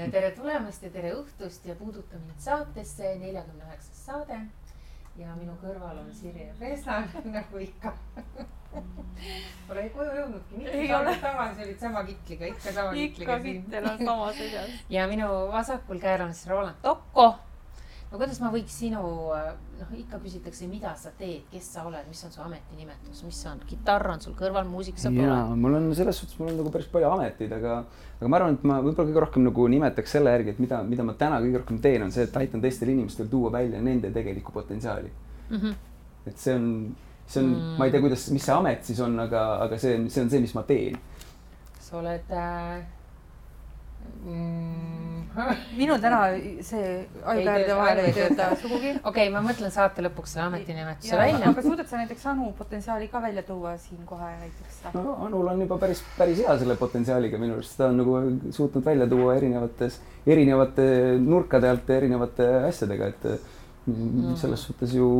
Tere tulemast ja tere õhtust ja puuduta mind saatesse 49. saade. Ja minu kõrval on Sirje Peslan, nagu ikka. Pole koju jõudnudki, mitu saadet tagasi olid sama kitliga, ikka sama kitliga siin. Ikka kittel on sama seljad. Ja minu vasakul käel on siis Roland Tokko. No kuidas ma võiks sinu, ikka küsitakse, mida sa teed, kes sa oled, mis on su ametinimetus, mis on, gitarr on sul kõrval, muusik sa pole? Jaa, mul on selles suhtes, mul on nagu päris palju ametid, aga ma arvan, et ma võib-olla kõige rohkem nagu nimetaks selle järgi, et mida ma täna kõige rohkem teen, on see, et aitan teistel inimestel tuua välja nende tegelikku potentsiaali. Et see on, ma ei tea, mis see amet siis on, aga see on see, mis ma teen. Sa oled... Minul täna see ajukäärde vahel ei tööta sugugi. Okei, ma mõtlen saate lõpuks selle ametinimetuse välja. Aga suudad sa näiteks Anu potentsiaali ka välja tuua siin kohe näiteks? No, Anul on juba päris hea selle potentsiaaliga minu arust. Ta on nagu suutnud välja tuua erinevate nurkade alt ja erinevate asjadega, et selles suhtes ju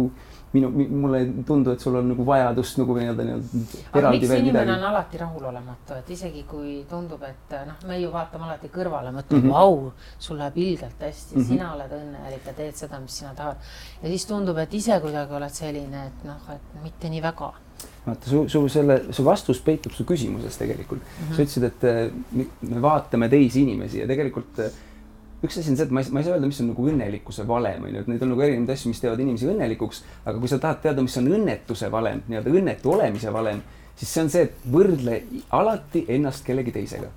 mulle ei tundu, et sul on nagu vajadust nagu eraldi veel midagi. Miks inimene on alati rahulolematu, et isegi kui tundub, et me ju vaatame alati kõrvale, mõtleme, vau, sul läheb ilgelt hästi, sina oled õnnelik ja teed seda, mis sina tahad. Ja siis tundub, et ise kuidagi oled selline, et mitte nii väga. Vaata, su vastus peitub su küsimuses tegelikult. Sa ütlesid, et me vaatame teisi inimesi ja tegelikult üks asi on see, et ma ei saa öelda, mis on nagu õnnelikkuse valem. Need on nagu erinevad asju, mis teevad inimesi õnnelikuks, aga kui sa tahad teada, mis on õnnetuse valem, õnnetu olemise valem, siis see on see, et võrdle alati ennast kellegi teisega.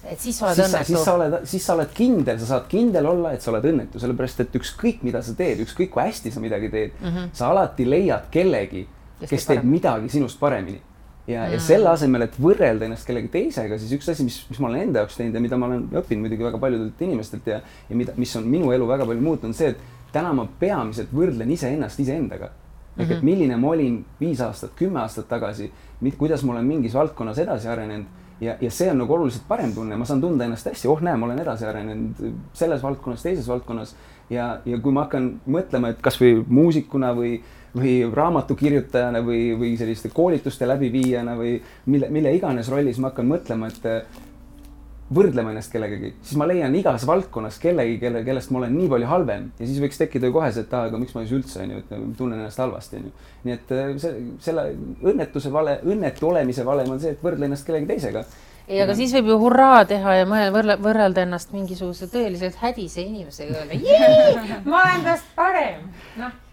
Et siis oled õnnetu. Siis sa oled kindel, sa saad kindel olla, et sa oled õnnetu, sellepärast, et ükskõik mida sa teed, ükskõik kui hästi sa midagi teed, sa alati leiad kellegi, kes teeb midagi sinust paremini. Ja selle asemel, et võrrelda ennast kellegi teisega, siis üks asi, mis ma olen enda jaoks teinud ja mida ma olen õppinud muidugi väga paljudelt inimestelt ja mis on minu elu väga palju muutunud, on see, et täna ma peamiselt võrdlen iseennast iseendaga. Ehk et milline ma olin 5 aastat, 10 aastat tagasi, kuidas ma olen mingis valdkonnas edasi arenenud ja see on nagu oluliselt parem tunne. Ma saan tunda ennast hästi, näe, ma olen edasi arenenud selles valdkonnas, teises valdkonnas ja kui ma hakkan mõtlema, et kas või muusikuna või raamatukirjutajana või selliste koolituste läbiviijana või mille iganes rollis ma hakkan mõtlema, et võrdlema ennast kellegagi, siis ma leian igas valdkonnas kellegi, kellest ma olen nii palju halvem ja siis võiks tekkida ju kohe see, et aga miks ma siis üldse tunnen ennast halvasti. Nii et selle õnnetu olemise valem on see, et võrdle ennast kellegi teisega. Aga siis võib ju hurraa teha ja võrrelda ennast mingisuguse tõeliselt hädise inimesega öelda, ma olen tast parem.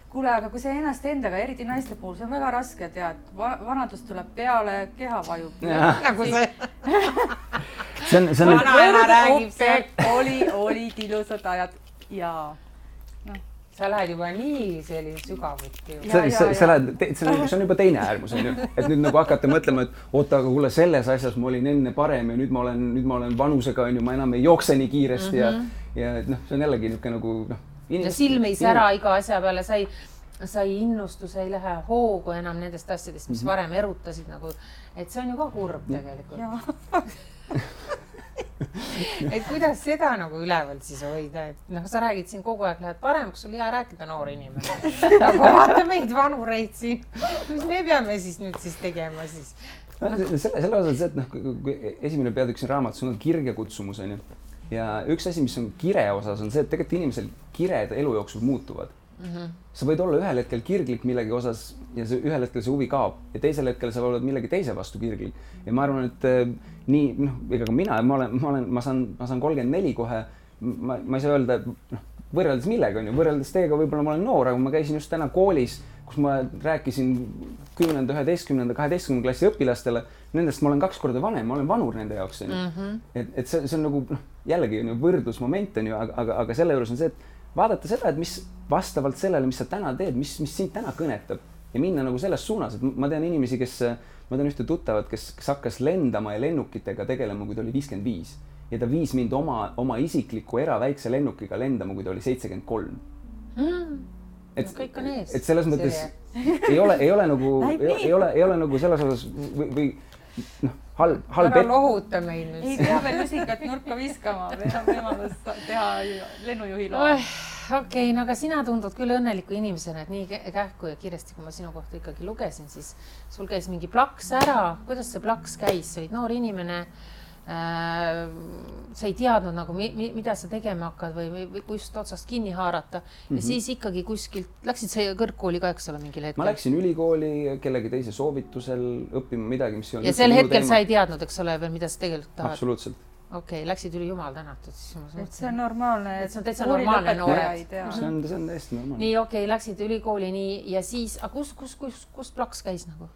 Kuule, aga kui see ennast endaga, eriti naiste puhul, see on väga raske tead. Vanadus tuleb peale, keha vajub. Nagu see. Vanaema räägib see. Olid ilusad ajad ja... Sa lähed juba nii selline sügavuti. See on juba teine äärmus. Et nüüd nagu hakata mõtlema, et oota, aga kuule, selles asjas ma olin enne parem ja nüüd ma olen vanusega, ma enam ei jookse nii kiiresti ja see on jällegi nagu... Ja silm ei sära iga asja peale, sai innustus, ei lähe hoogu enam nendest asjadest, mis varem erutasid nagu, et see on ju ka kurb tegelikult. Et kuidas seda nagu üleval siis hoida, et sa räägid siin kogu aeg, lähed paremaks, sul hea rääkida noor inimene. Aga vaata meid vanureid siin, mis me peame siis nüüd siis tegema siis? Selle osas, et kui esimene peatükk siin raamatus on kirge kutsumus, ja üks asi, mis on kire osas, on see, et tegelikult inimesel kired elu jooksul muutuvad. Sa võid olla ühel hetkel kirglik millegi osas ja ühel hetkel see huvi kaob ja teisel hetkel sa oled millegi teise vastu kirglik. Ja ma arvan, et nii, ega ka mina, ma saan 34 kohe, ma ei saa öelda, võrreldes millega on ju, võrreldes teiega võib-olla ma olen noor, aga ma käisin just täna koolis, kus ma rääkisin 10., 11., 12. klassi õpilastele, nendest ma olen 2 korda vanem, ma olen vanur nende jaoks. Et see on nagu jällegi võrdlusmoment, aga selle juures on see, et vaadata seda, et mis vastavalt sellele, mis sa täna teed, mis sind täna kõnetab ja minna nagu selles suunas, et ma tean inimesi, ma tean ühte tuttavat, kes hakkas lendama ja lennukitega tegelema, kui ta oli 55 ja ta viis mind oma isikliku eraväikse lennukiga lendama, kui ta oli 73. Kõik on ees. Et selles mõttes ei ole nagu selles osas või halb ära lohuta meil nüüd. Ei pea veel lusikat nurka viskama, meil on võimalus teha lennujuhi loa. Okei, aga sina tundud küll õnneliku inimesena, et nii kähku ja kiiresti, kui ma sinu kohta ikkagi lugesin, siis sul käis mingi plaks ära. Kuidas see plaks käis? Sa olid noor inimene, sa ei teadnud nagu, mida sa tegema hakkad või kust otsast kinni haarata. Ja siis ikkagi kuskilt, läksid sa kõrgkooli ka, eks ole, mingil hetkel? Ma läksin ülikooli kellegi teise soovitusel õppima midagi, mis ei olnud. Ja sel hetkel sa ei teadnud, eks ole, veel, mida sa tegelikult tahad? Absoluutselt. Okei, läksid üli jumal tänatud. See on normaalne. See on täitsa normaalne noored. See on täiesti normaalne. Nii, okei, läksid ülikooli nii ja siis, kus plaks käis nagu?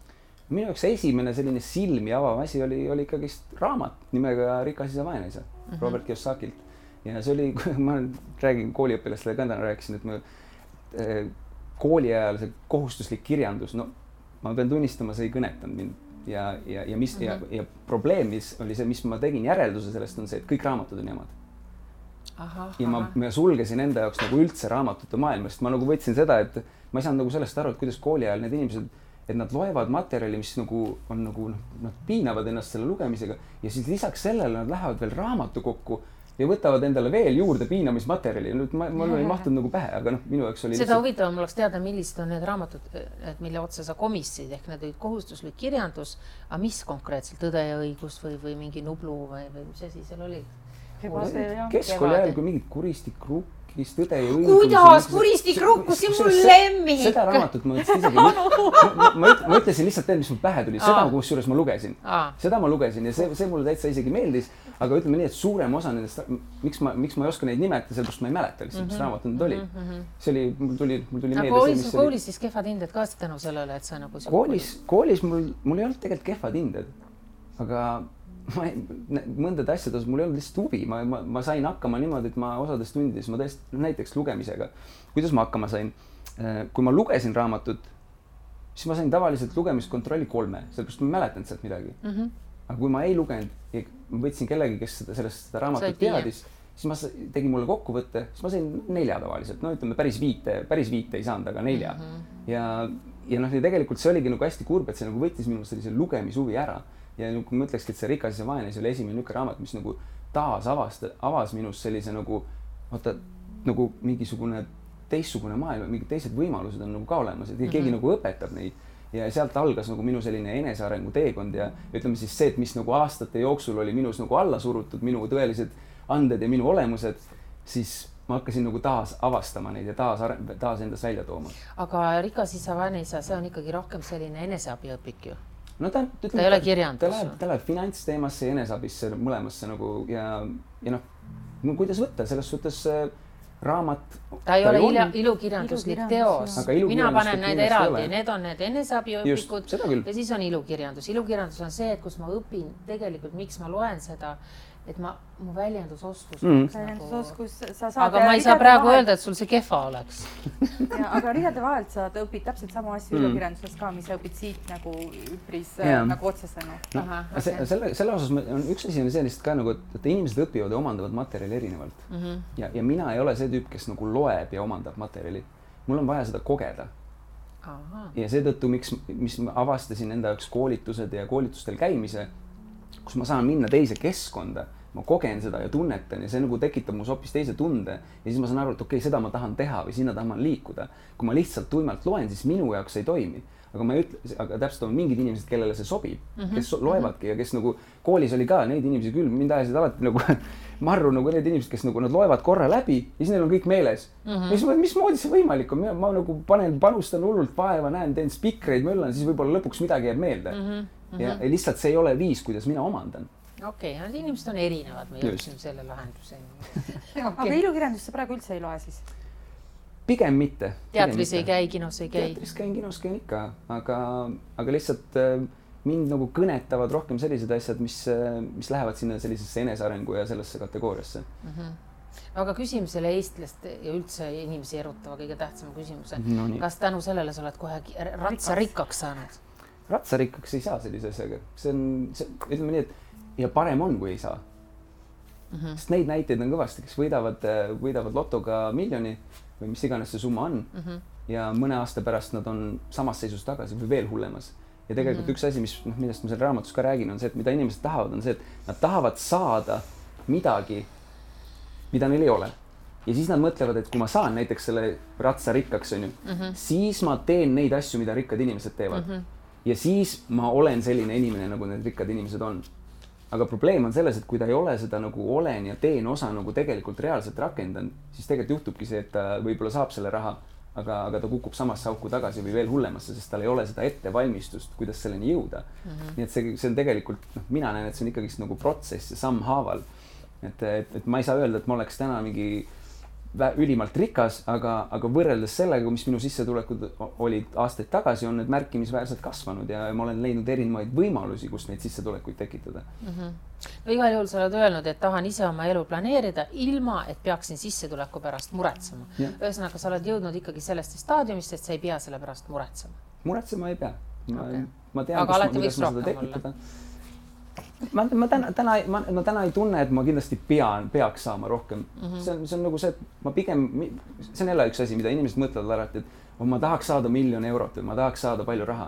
Minu jaoks esimene selline silmi avav asi oli ikkagist raamat nimega Rikas isa, vaene isa, Robert Kiyosakilt. Ja see oli, ma räägin kooliõpilastele ka täna rääkisin, et ma kooli ajal see kohustuslik kirjandus, no ma pean tunnistama, see ei kõnetanud mind. Ja probleem, mis oli see, mis ma tegin järelduse sellest, on see, et kõik raamatud on jamad. Ja ma sulgesin enda jaoks nagu üldse raamatute maailmast. Ma nagu võtsin seda, et ma ei saanud nagu sellest aru, et kuidas kooli ajal need inimesed, et nad loevad materjali, mis nagu on nagu, nad piinavad ennast selle lugemisega ja siis lisaks sellele nad lähevad veel raamatu kokku ja võtavad endale veel juurde piinamismaterjali. Nüüd mul ei mahtunud nagu pähe, aga minu jaoks oli... Seda huvitavam oleks teada, millised on need raamatud, mille otsa sa komissid, ehk need olid kohustuslik kirjandus, aga mis konkreetselt, Tõde ja õigus või mingi Nublu või mis asi seal oli? Keskkooli ajal, kui mingid Kuristik Rukkis, Tõde ja õigus... Kuidas Kuristik Rukkus, see mul lemmik! Seda raamatut ma isegi... Ma ütlesin lihtsalt tead, mis mul pähe tuli, seda kusjuures ma lugesin. Seda ma lugesin ja see mulle täitsa isegi meeldis, aga ütleme nii, et suurem osa nendest, miks ma ei oska neid nimetada, sellepärast ma ei mäleta lihtsalt, mis raamat need oli. See oli, mul tuli meelde see, koolis siis kehvad hinded ka tänu sellele, et sa nagu... Koolis mul ei olnud tegelikult kehvad hinded, aga mõndade asjades mul ei olnud lihtsalt huvi. Ma sain hakkama niimoodi, et ma osades tundides, ma tõesti näiteks lugemisega. Kuidas ma hakkama sain? Kui ma lugesin raamatut, siis ma sain tavaliselt lugemiskontrolli 3, sellepärast ma mäletan sealt midagi. Aga kui ma ei lugenud ja ma võtsin kellegi, kes sellest raamatut teadis, siis ma tegin mulle kokkuvõtte, siis ma sain 4 tavaliselt. No ütleme, päris viite ei saanud, aga 4. Ja tegelikult see oligi nagu hästi kurb, et see nagu võttis minu sellise lugemishuvi ära. Ja kui ma ütlekski, et see Rikas isa, vaene isa oli esimene niisugune raamat, mis nagu taas avas minus sellise nagu mingisugune teistsugune maailm, mingid teised võimalused on nagu ka olemas, et keegi nagu õpetab neid. Ja sealt algas nagu minu selline enesearengu teekond ja ütleme siis see, et mis nagu aastate jooksul oli minus nagu alla surutud, minu tõelised anded ja minu olemused, siis ma hakkasin nagu taas avastama neid ja taas endas välja tooma. Aga Rikas isa, vaene isa, see on ikkagi rohkem selline eneseabiõpik ju. No ta ei ole kirjandus. Ta läheb finantsteemasse ja enesabisse mõlemasse nagu ja kuidas võtta, selles suhtes raamat. Ta ei ole ilukirjanduslik teos. Mina panen need eraldi, need on need eneseabiõpikud ja siis on ilukirjandus. Ilukirjandus on see, et kus ma õpin tegelikult, miks ma loen seda, et mu väljendusoskus. Aga ma ei saa praegu öelda, et sul see kehva oleks. Aga rihade vahelt sa õpid täpselt sama asju ilukirjanduses ka, mis sa õpid siit nagu üpris nagu otsesena. Selle osas on üks asi on sellist ka nagu, et inimesed õpivad ja omandavad materjali erinevalt. Ja mina ei ole see tüüp, kes nagu loeb ja omandab materjali. Mul on vaja seda kogeda. Ja seetõttu, mis ma avastasin enda jaoks koolitused ja koolitustel käimise, kus ma saan minna teise keskkonda, ma kogen seda ja tunnetan ja see nagu tekitab muus hoopis teise tunde ja siis ma saan aru, et okei, seda ma tahan teha või sinna tahan liikuda. Kui ma lihtsalt tuimalt loen, siis minu jaoks ei toimi. Aga täpselt on mingid inimesed, kellele see sobib, kes loevadki ja kes nagu koolis oli ka neid inimesi küll, mind ajasid alati nagu marru nagu need inimesed, kes nagu nad loevad korra läbi ja siis neil on kõik meeles. Mismoodi see võimalik on? Ma nagu panustan hullult vaeva, teen spikreid, möllan, siis võib-olla lõpuks midagi jääb meelde. Ja lihtsalt see ei ole viis, kuidas mina omandan. Okei, need inimesed on erinevad, me jõudsime selle lahenduseni. Aga ilukirjandus sa praegu üldse ei loe siis? Pigem mitte. Teatris ei käi, kinos ei käi? Teatris käin, kinos käin ikka, aga lihtsalt mind nagu kõnetavad rohkem sellised asjad, mis lähevad sinna sellisesse enesearengu ja sellesse kategooriasse. Aga küsime selle eestlast ja üldse inimesi erutava kõige tähtsama küsimuse. Kas tänu sellele sa oled kohe ratsarikkaks saanud? Ratsarikkaks ei saa sellise asjaga. See on, ütleme nii, et ja parem on, kui ei saa. Sest neid näiteid on kõvasti, kes võidavad lotoga miljoni või mis iganes see summa on ja mõne aasta pärast nad on samas seisus tagasi või veel hullemas. Ja tegelikult üks asi, millest ma selle raamatus ka räägin, on see, et mida inimesed tahavad, on see, et nad tahavad saada midagi, mida neil ei ole. Ja siis nad mõtlevad, et kui ma saan näiteks selle ratsa rikkaks, siis ma teen neid asju, mida rikkad inimesed teevad. Ja siis ma olen selline inimene, nagu need rikkad inimesed on. aga probleem on selles, et kui ta ei ole seda nagu olen ja teen osa nagu tegelikult reaalselt rakendanud, siis tegelikult juhtubki see, et ta võib-olla saab selle raha, aga ta kukub samasse auku tagasi või veel hullemasse, sest tal ei ole seda ettevalmistust, kuidas selleni jõuda. Nii et see on tegelikult, mina näen, et see on ikkagi nagu protsess ja sammhaaval. Et ma ei saa öelda, et ma oleks täna mingi ülimalt rikas, aga võrreldes sellega, mis minu sissetulekud olid aastaid tagasi, on need märkimisväärselt kasvanud ja ma olen leidnud erinevaid võimalusi, kus neid sissetulekuid tekitada. No igal juhul sa oled öelnud, et tahan ise oma elu planeerida ilma, et peaksin sissetuleku pärast muretsema. Ühesõnaga, sa oled jõudnud ikkagi sellest staadiumist, et sa ei pea selle pärast muretsema. Muretsema ei pea. Ma tean, aga alati võiks rohkem olla. Ma täna ei tunne, et ma kindlasti peaks saama rohkem. See on nagu see, et ma pigem, see on jälle üks asi, mida inimesed mõtlevad alati, et ma tahaks saada 1 000 000 eurot või ma tahaks saada palju raha,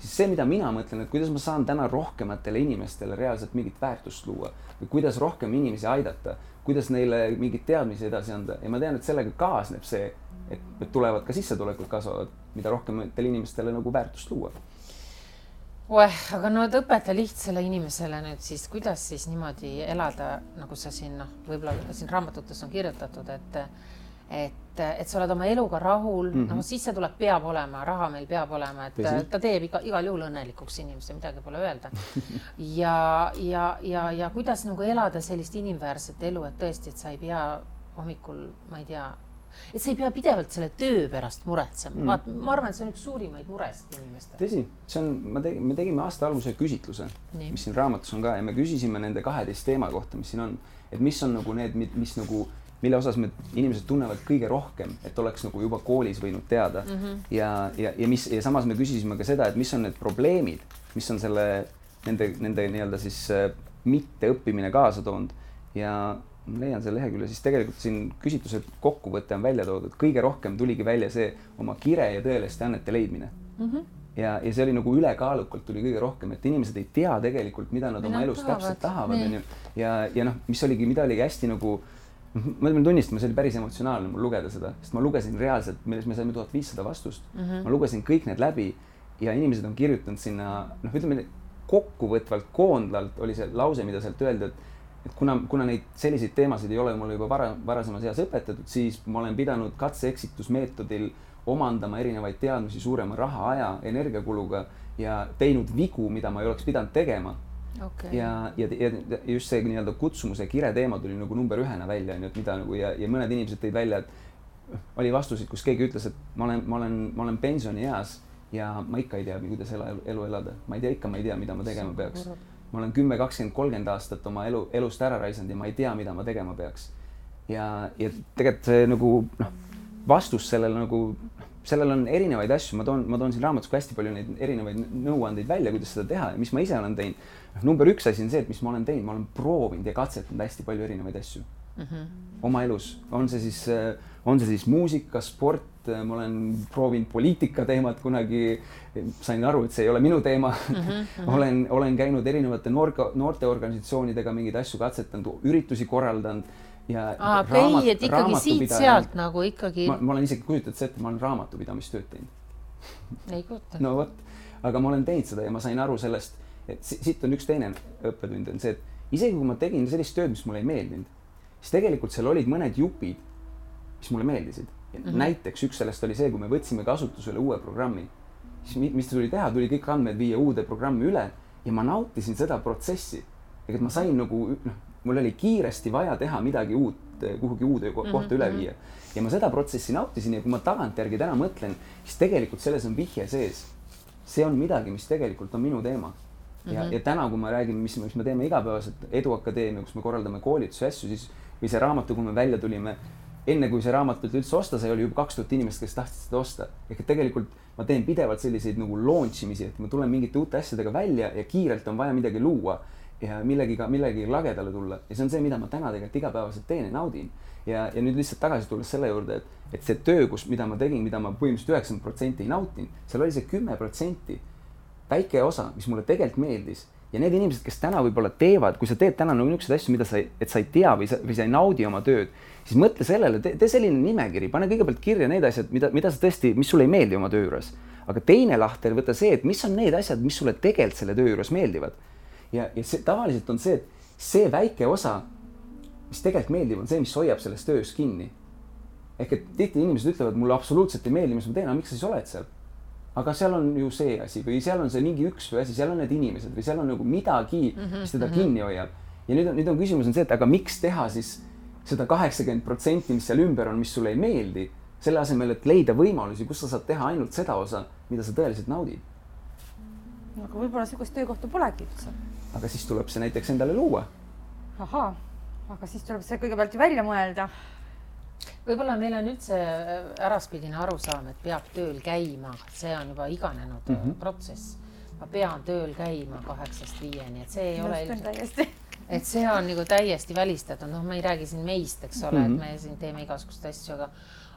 siis see, mida mina mõtlen, et kuidas ma saan täna rohkematele inimestele reaalselt mingit väärtust luua või kuidas rohkem inimesi aidata, kuidas neile mingit teadmisi edasi anda ja ma tean, et sellega kaasneb see, et tulevad ka sissetulekud kasvavad, mida rohkematele inimestele nagu väärtust luua. Aga no õpeta lihtsale inimesele nüüd siis, kuidas siis niimoodi elada, nagu sa siin, võib-olla siin raamatutes on kirjutatud, et sa oled oma eluga rahul, sissetulek peab olema, raha meil peab olema, et ta teeb igal juhul õnnelikuks inimese, midagi pole öelda. Ja kuidas nagu elada sellist inimväärset elu, et tõesti, et sa ei pea hommikul, ma ei tea, et sa ei pea pidevalt selle töö pärast muretsema. Ma arvan, et see on üks suurimaid muresid inimestele. Tõsi, me tegime aasta alguse küsitluse, mis siin raamatus on ka ja me küsisime nende 12 teema kohta, mis siin on, et mis on nagu need, mis nagu, mille osas inimesed tunnevad kõige rohkem, et oleks nagu juba koolis võinud teada. Ja samas me küsisime ka seda, et mis on need probleemid, mis on nende nii-öelda siis mitte õppimine kaasa toonud ja leian selle lehekülje, siis tegelikult siin küsitluse kokkuvõte on välja toodud. Kõige rohkem tuligi välja see oma kire ja tõeliste annete leidmine. Ja see oli nagu ülekaalukalt tuli kõige rohkem, et inimesed ei tea tegelikult, mida nad oma elus täpselt tahavad. Ja mida oligi hästi nagu, ma tunnistan, see oli päris emotsionaalne mul lugeda seda, sest ma lugesin reaalselt, me saime 1500 vastust. Ma lugesin kõik need läbi ja inimesed on kirjutanud sinna, ütleme kokkuvõtvalt koondlalt oli see lause, mida sealt öelda, et kuna neid selliseid teemasid ei ole mulle juba varasemas eas õpetatud, siis ma olen pidanud katse-eksitusmeetodil omandama erinevaid teadmisi suurema raha, aja, energiakuluga ja teinud vigu, mida ma ei oleks pidanud tegema. Ja just see nii-öelda kutsumuse kire teema tuli nagu number 1 välja, ja mõned inimesed tõid välja, et oli vastusid, kus keegi ütles, et ma olen pensioni eas ja ma ikka ei tea, kuidas elu elada. Ma ei tea, mida ma tegema peaks. Ma olen 10, 20, 30 aastat oma elust ära raisanud ja ma ei tea, mida ma tegema peaks. Ja tegelikult see nagu vastus sellel on erinevaid asju. Ma toon siin raamatus hästi palju neid erinevaid nõuandeid välja, kuidas seda teha ja mis ma ise olen teinud. Number 1 asi on see, et mis ma olen teinud. Ma olen proovinud ja katsetanud hästi palju erinevaid asju oma elus. On see siis muusika, sport, ma olen proovinud poliitika teemat kunagi, sain aru, et see ei ole minu teema. Olen käinud erinevate noorteorganisatsioonidega mingeid asju katsetanud, üritusi korraldanud. Et ikkagi siit-sealt nagu ikkagi... Ma olen isegi kujutanud see, et ma olen raamatupidamistööd teinud. Ei kujuta. No võt, aga ma olen teinud seda ja ma sain aru sellest, et siit on üks teine õppetund, on see, et isegi kui ma tegin sellist tööd, mis mulle ei meeldinud, siis tegelikult seal olid mõned jupid, mis mulle meeldisid. Näiteks üks sellest oli see, kui me võtsime kasutusele uue programmi, siis mis tuli teha, tuli kõik andmed viia uude programmi üle ja ma nautisin seda protsessi. Et ma sain nagu, mul oli kiiresti vaja teha midagi uut, kuhugi uude kohta üle viia. Ja ma seda protsessi nautisin ja kui ma tagantjärgi täna mõtlen, siis tegelikult selles on vihje sees. See on midagi, mis tegelikult on minu teema. Ja täna, kui ma räägin, mis me teeme igapäevaselt Eduakadeemia, kus me korraldame koolitusi asju, siis või see raamatu, kui me välja tulime, enne kui see raamatut üldse osta sai, oli juba 2000 inimest, kes tahtsid seda osta. Ehk tegelikult ma teen pidevalt selliseid nagu launchimisi, et ma tulen mingite uute asjadega välja ja kiirelt on vaja midagi luua ja millegi lagedale tulla. Ja see on see, mida ma täna tegelikult igapäevaselt teen ja naudin. Ja nüüd lihtsalt tagasi tulles selle juurde, et see töö, mida ma tegin, mida ma põhimõtteliselt 90% ei nautin, seal oli see 10% väike osa, mis mulle tegelikult meeldis. Ja need inimesed, kes täna võib-olla teevad, kui sa teed täna niisuguseid asju, mida sa ei tea või sa ei naudi oma tööd, siis mõtle sellele, tee selline nimekiri, pane kõigepealt kirja need asjad, mida sa tõesti, mis sulle ei meeldi oma töö juures. Aga teine lahter, võta see, et mis on need asjad, mis sulle tegelikult selle töö juures meeldivad. ja see tavaliselt on see, et see väike osa, mis tegelikult meeldib, on see, mis hoiab selles töös kinni. Ehk et tihti inimesed ütlevad, mulle absoluutselt ei meeldi, mis ma teen, aga miks sa siis oled seal? Aga seal on ju see asi või seal on see mingi üks või asi, seal on need inimesed või seal on nagu midagi, mis teda kinni hoiab. Ja nüüd on küsimus on see, et aga miks teha siis seda 80%, mis seal ümber on, mis sulle ei meeldi, selle asemel, et leida võimalusi, kus sa saad teha ainult seda osa, mida sa tõeliselt naudid. Aga võib-olla sellist töökohta polegi üldse. Aga siis tuleb see näiteks endale luua. Ahaa, aga siis tuleb see kõigepealt ju välja mõelda. Võib-olla meil on üldse äraspidine arusaam, et peab tööl käima. See on juba iganenud protsess. Ma pean tööl käima 8-5, et see ei ole ilmselt. Et see on nagu täiesti välistatud. No ma ei räägi siin meist, eks ole, et me siin teeme igasugust asju,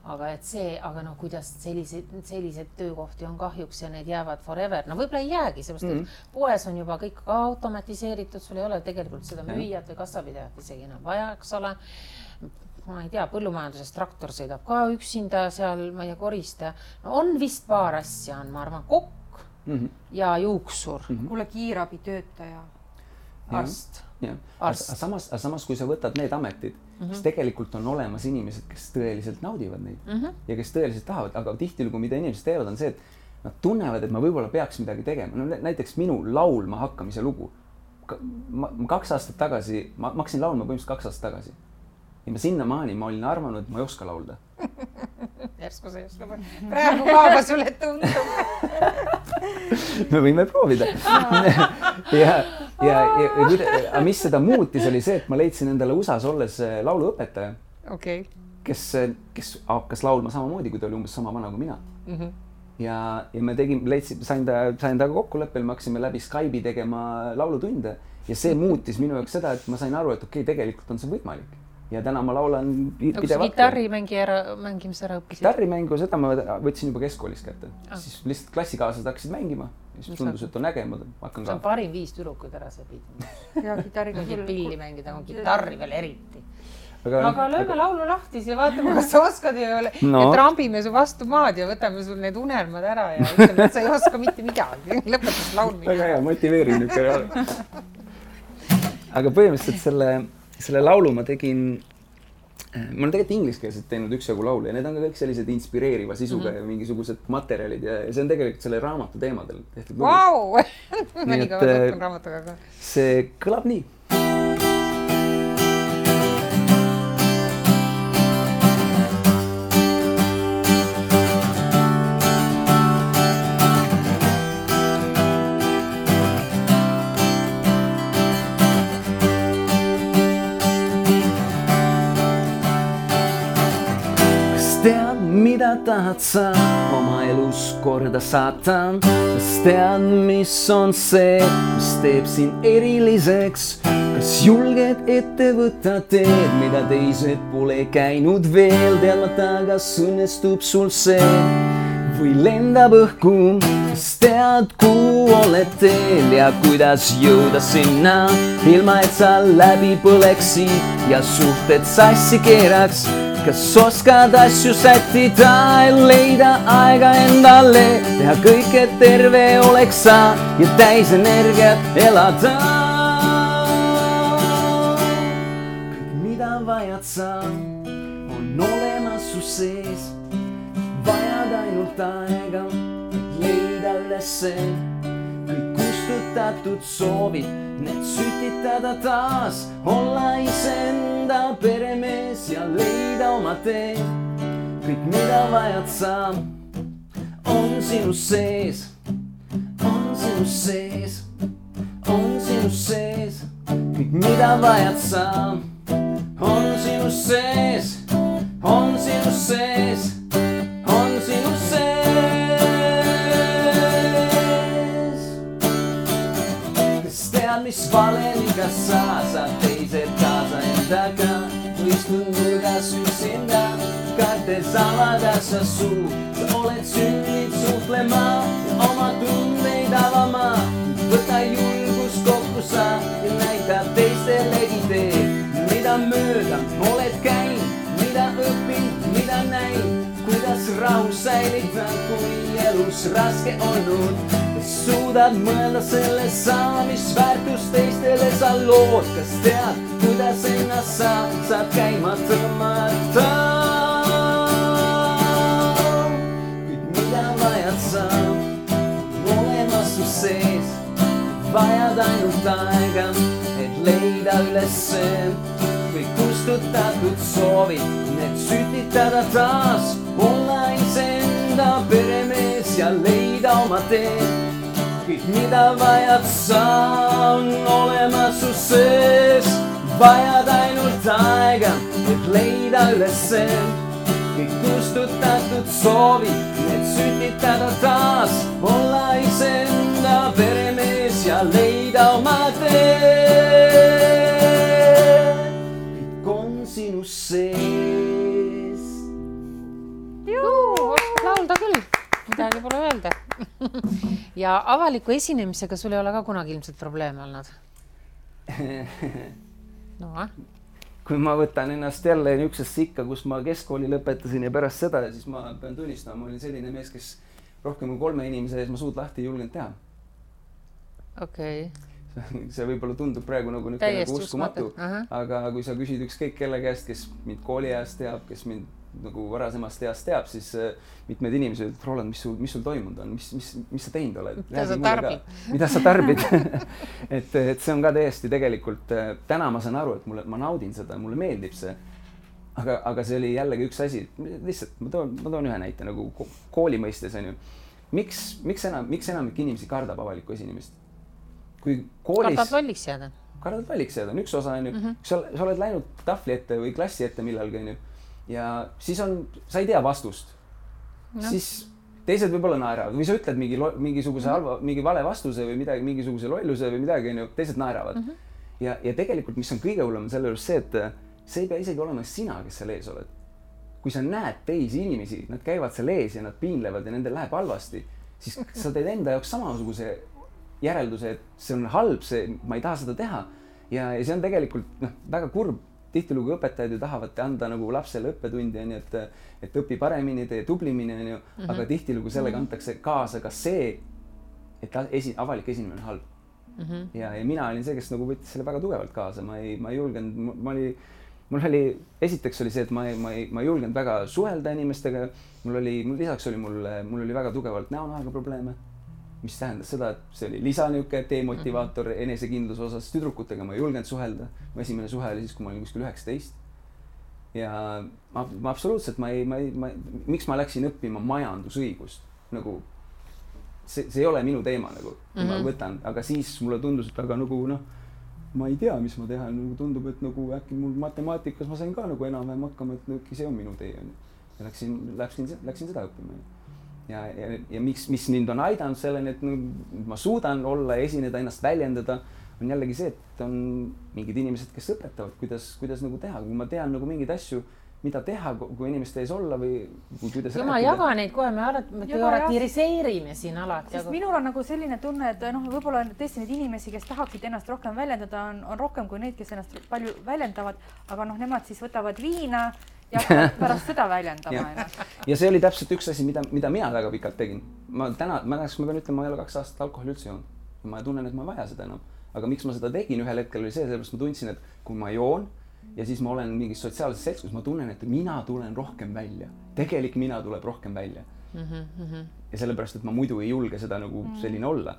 aga et see, aga no kuidas sellised töökohti on kahjuks ja need jäävad forever. No võib-olla ei jäägi, sellepärast, et poes on juba kõik automatiseeritud, sul ei ole tegelikult seda müüjat või kassapidajat isegi enam vaja, eks ole. Ma ei tea, põllumajanduses traktor sõidab ka üksinda seal, ma ei tea, korista. No on vist paar asja on, ma arvan, kokk ja juuksur. Kuule kiirabi töötaja. Arst. Samas, kui sa võtad need ametid, siis tegelikult on olemas inimesed, kes tõeliselt naudivad neid ja kes tõeliselt tahavad, aga tihtilugu, mida inimesed teevad, on see, et nad tunnevad, et ma võib-olla peaks midagi tegema. No, näiteks minu laulma hakkamise lugu. Ma 2 aastat tagasi, ma hakkasin laulma põhimõtteliselt 2 aastat tagasi. Ja ma sinnamaani ma olin arvanud, et ma ei oska laulda. Järsku see just praegu kaaba sulle tundub. Me võime proovida. Ja mis seda muutis oli see, et ma leidsin endale USAs olles lauluõpetaja, kes hakkas laulma samamoodi, kui ta oli umbes sama vana kui mina. Ja me sain ta kokkuleppel, me hakkasime läbi Skype'i tegema laulutunde ja see muutis minu jaoks seda, et ma sain aru, et okei, tegelikult on see võimalik. Ja täna ma laulan pidevalt. Gitarrimängimise ära õppisid? Gitarrimängu, seda ma võtsin juba keskkoolis kätte. Siis lihtsalt klassikaaslased hakkasid mängima. Siis tundus, et on äge, ma hakkan ka. See on parim 5 tüdrukuid ära sõbid. Ja gitarriga pilli mängida, on gitarri veel eriti. Aga lööme laulu lahti ja vaatame, kas sa oskad ja trambime su vastu maad ja võtame sul need unelmad ära ja ütleme, et sa ei oska mitte midagi. Lõpetas laulmine. Väga hea, motiveerin nüüd ka. Aga põhimõtteliselt selle laulu ma tegin, ma olen tegelikult ingliskeelselt teinud üksjagu laulu ja need on ka kõik sellised inspireeriva sisuga ja mingisugused materjalid ja see on tegelikult selle raamatu teemadel tehtud lugu. Vau! Ma nii kõva tuttun raamatuga ka. See kõlab nii. Mida tahad sa oma elus korda saata? Kas tead, mis on see, mis teeb sind eriliseks? Kas julged ette võtta teed, mida teised pole käinud veel? Teadmata, kas õnnestub sul see või lendab õhku? Kas tead, kuhu oled teel ja kuidas jõuda sinna? Ilma, et sa läbi põleksid ja suhted sassi keeraks. Kas oskad asju sättida ja leida aega endale, teha kõik, et terve oleks sa ja täis energiat elada? Kõik, mida vajad sa, on olemas su sees. Vajad ainult aega, et leida ülesse. Kõik kustutatud soovid, need sütitada taas, olla iseenda peremees ja leida oma tee. Kõik, mida vajad sa, on sinu sees, on sinu sees, on sinu sees. Kõik, mida vajad sa, on sinu sees, on sinu sees, on sinu sees. Mis valemiga saad teised kaasa endaga, istud nurgas üksinda, kartes avada sa suu. Sa oled sünninud suhtlema ja oma tundeid avama. Võta julgus kokku sa ja näita teistelegi teed, mida mööda oled käinud, mida õppinud, mida näinud, kuidas rahu säilitan, kui elus raske olnud. suudad mõelda selle saamisväärtust teistele sa lood, kas tead, kuidas ennast saad käima tõmmata. Kõik mida vajad sa, olemas su sees, vajad ainult aega, et leida üles kõik kustutatud soovid, need sütitada taas, olla iseenda peremees ja leida oma tee. Kõik mida vajad sa, on olemas su sees, vajad ainult aega, et leida üles kõik kustutatud soovid, need sütitada taas, olla iseenda peremees ja leida oma tee. Kõik on sinu sees. Oskad laulda küll, midagi pole öelda. Ja avaliku esinemisega sul ei ole ka kunagi ilmselt probleeme olnud? No, kui ma võtan ennast jälle niisugusesse ikka, kus ma keskkooli lõpetasin ja pärast seda, siis ma pean tunnistama, ma olin selline mees, kes rohkem kui 3 inimese ees ma suud lahti ei julgenud teha. Okei. See võib-olla tundub praegu nagu uskumatu, aga kui sa küsid ükskõik kelle käest, kes mind kooli ajast teab, kes mind nagu varasemast east teab, siis mitmed inimesed ütlevad, Roland, mis sul toimunud on, mis sa teinud oled? Mida sa tarbid? et see on ka täiesti tegelikult, täna ma saan aru, et ma naudin seda, mulle meeldib see, aga see oli jällegi üks asi, lihtsalt ma toon ühe näite nagu kooli mõistes on ju. Miks enamik inimesi kardab avalikku esinemist? Kui koolis... Kardad valliks jääda? Kardad valliks jääda, on üks osa on ju. Sa oled läinud tahvli ette või klassi ette millalgi on ju. Ja siis sa ei tea vastust. No. Siis teised võib-olla naeravad või sa ütled mingi vale vastuse või midagi, mingisuguse lolluse või midagi, teised naeravad. Ja tegelikult, mis on kõige hullem selle juures see, et see ei pea isegi olema sina, kes seal ees oled. Kui sa näed teisi inimesi, nad käivad seal ees ja nad piinlevad ja nendel läheb halvasti, siis sa teed enda jaoks samasuguse järelduse, et see on halb, ma ei taha seda teha. Ja see on tegelikult väga kurb. Tihtilugu õpetajad ju tahavad anda nagu lapsele õppetundi, et õpi paremini, tee tublimini, aga tihtilugu sellega antakse kaasa ka see, et avalik esinemine on halb. Ja mina olin see, kes nagu võttis selle väga tugevalt kaasa. Ma ei julgenud, esiteks oli see, et ma ei julgenud väga suhelda inimestega. Lisaks oli mul oli väga tugevalt näonahaga probleeme, mis tähendas seda, et see oli lisanüke demotivaator enesekindluse osas. Tüdrukutega ma ei julgenud suhelda. Mu esimene suhe oli siis, kui ma olin kuskil 19. Ja ma absoluutselt, miks ma läksin õppima majandusõigust? Nagu, see ei ole minu teema, nagu, ma võtan. Aga siis mulle tundus, et aga nagu, ma ei tea, mis ma teha. Tundub, et nagu äkki mul matemaatikas ma sain ka nagu enam-vähem hakkama, et see on minu tee. Ja läksin seda õppima. Ja mis mind on aidanud selleni, et ma suudan olla ja esineda, ennast väljendada, on jällegi see, et on mingid inimesed, kes õpetavad, kuidas nagu teha. Kui ma tean nagu mingid asju, mida teha, kui inimeste ees olla või kuidas rääkida. Ma jaga neid kohe, me teoretiseerime siin alati. Sest minul on nagu selline tunne, et võib-olla tõesti neid inimesi, kes tahaksid ennast rohkem väljendada, on rohkem kui neid, kes ennast palju väljendavad, aga nemad siis võtavad viina ja pärast seda väljendama. Ja see oli täpselt üks asi, mida mina väga pikalt tegin. Ma pean ütlema, ma ei ole 2 aastat alkoholi üldse joonud. Ma tunnen, et ma ei vaja seda enam. Aga miks ma seda tegin ühel hetkel oli see, sellepärast ma tundsin, et kui ma joon ja siis ma olen mingis sotsiaalses seltskonnas, ma tunnen, et mina tulen rohkem välja. Tegelik mina tuleb rohkem välja. Ja sellepärast, et ma muidu ei julge seda nagu selline olla.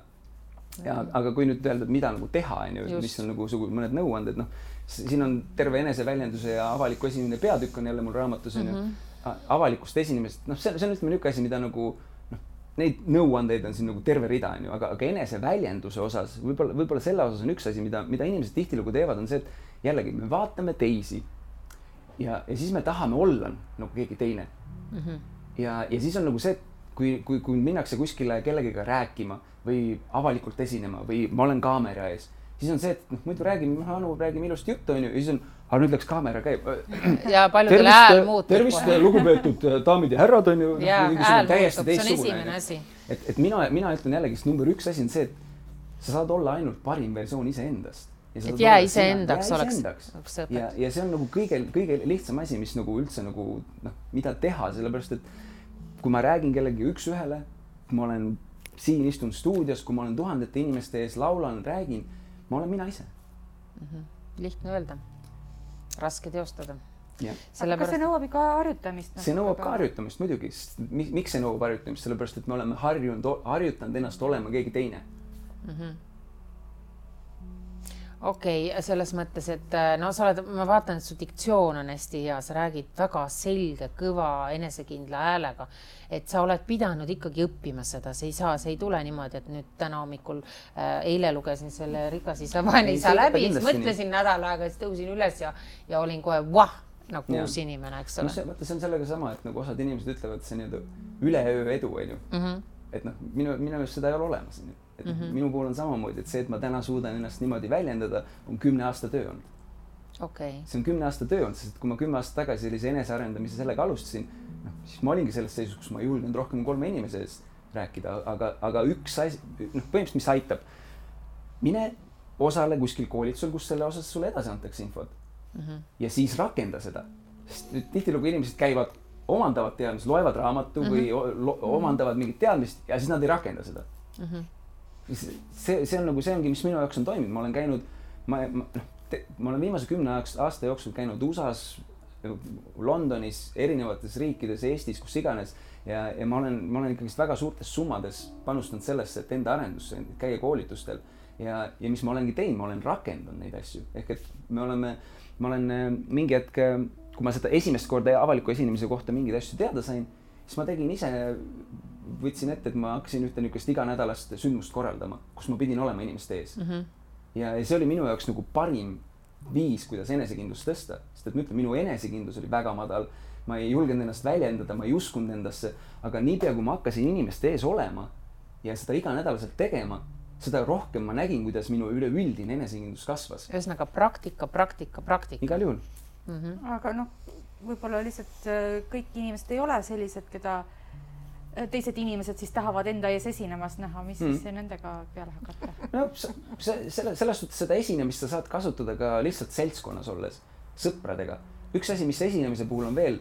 Aga kui nüüd öelda, mida nagu teha, mis on nagu mõned nõuanded, siin on terve eneseväljenduse ja avaliku esinemine peatükk on jälle mul raamatus, avalikust esinemist, see on ütleme niisugune asi, mida nagu, neid nõuandeid on siin nagu terve rida, aga eneseväljenduse osas, võib-olla selle osas on üks asi, mida inimesed tihtilugu teevad, on see, et jällegi me vaatame teisi ja siis me tahame olla nagu keegi teine. Ja siis on nagu see, kui minnakse kuskile kellegiga rääkima või avalikult esinema või ma olen kaamera ees, siis on see, et muidu räägime ilusti juttu, ja siis on, aga nüüd läks kaamera käib. Ja paljudel hääl muutub. Tervist, lugupeetud daamid ja härrad on ju. Ja hääl muutub, see on esimene asi. Et mina ütlen jällegi, number 1 asi on see, et sa saad olla ainult parim versioon iseendast. Et jää iseendaks oleks õpet. Ja see on nagu kõige lihtsam asi, mis nagu üldse mida teha, sellepärast, et kui ma räägin kellegi üks ühele, ma olen siin istun stuudios, kui ma olen tuhandete inimeste ees, laulan, räägin, ma olen mina ise. Lihtne öelda, raske teostada. Aga kas see nõuab ikka harjutamist? See nõuab ka harjutamist muidugi. Miks see nõuab harjutamist? Sellepärast, et me oleme harjutanud ennast olema keegi teine. Okei, selles mõttes, et no sa oled, ma vaatan, et su diktsioon on hästi hea, sa räägid väga selge, kõva, enesekindla häälega, et sa oled pidanud ikkagi õppima seda, see ei tule niimoodi, et nüüd täna hommikul eile lugesin selle Rikas isa, vaene isa läbi, siis mõtlesin nädal aega, siis tõusin üles ja olin kohe nagu uus inimene, eks ole. No see on sellega sama, et nagu osad inimesed ütlevad, see nii-öelda üleöö edu, et minu just seda ei ole olemas. Et minu puhul on samamoodi, et see, et ma täna suudan ennast niimoodi väljendada, on 10 aasta töö olnud. See on 10 aasta töö olnud, sest kui ma 10 aasta tagasi sellise enesearendamise sellega alustasin, siis ma olingi selles seisus, kus ma ei julgenud rohkem 3 inimese eest rääkida, aga üks asi, põhimõtteliselt mis aitab, mine osale kuskil koolitusel, kus selle osas sulle edasi antakse infot ja siis rakenda seda. Sest tihtilugu inimesed käivad, omandavad teadmist, loevad raamatu või omandavad mingit teadmist ja siis nad ei rakenda seda. See on nagu see ongi, mis minu jaoks on toiminud. Ma olen käinud, ma olen viimase 10 aasta jooksul käinud USA-s, Londonis, erinevates riikides, Eestis, kus iganes ja ma olen ikkagist väga suurtes summades panustanud sellesse, et enda arendusse, käia koolitustel ja mis ma olengi teinud, ma olen rakendanud neid asju. Ehk et ma olen mingi hetk, kui ma seda esimest korda avaliku esinemise kohta mingeid asju teada sain, siis ma tegin ise võtsin ette, et ma hakkasin ühte niisugust iganädalast sündmust korraldama, kus ma pidin olema inimeste ees. Ja see oli minu jaoks nagu parim viis, kuidas enesekindlust tõsta. Sest et ma ütlen, minu enesekindlus oli väga madal. Ma ei julgenud ennast väljendada, ma ei uskunud endasse. Aga niipea, kui ma hakkasin inimeste ees olema ja seda iganädalaselt tegema, seda rohkem ma nägin, kuidas minu üleüldine enesekindlus kasvas. Ühesõnaga praktika. Igal juhul. Aga võib-olla lihtsalt kõik inimesed ei ole sellised, keda teised inimesed siis tahavad enda ees esinemast näha, mis siis nendega peale hakata? No selles suhtes seda esinemist sa saad kasutada ka lihtsalt seltskonnas olles, sõpradega. Üks asi, mis esinemise puhul on veel,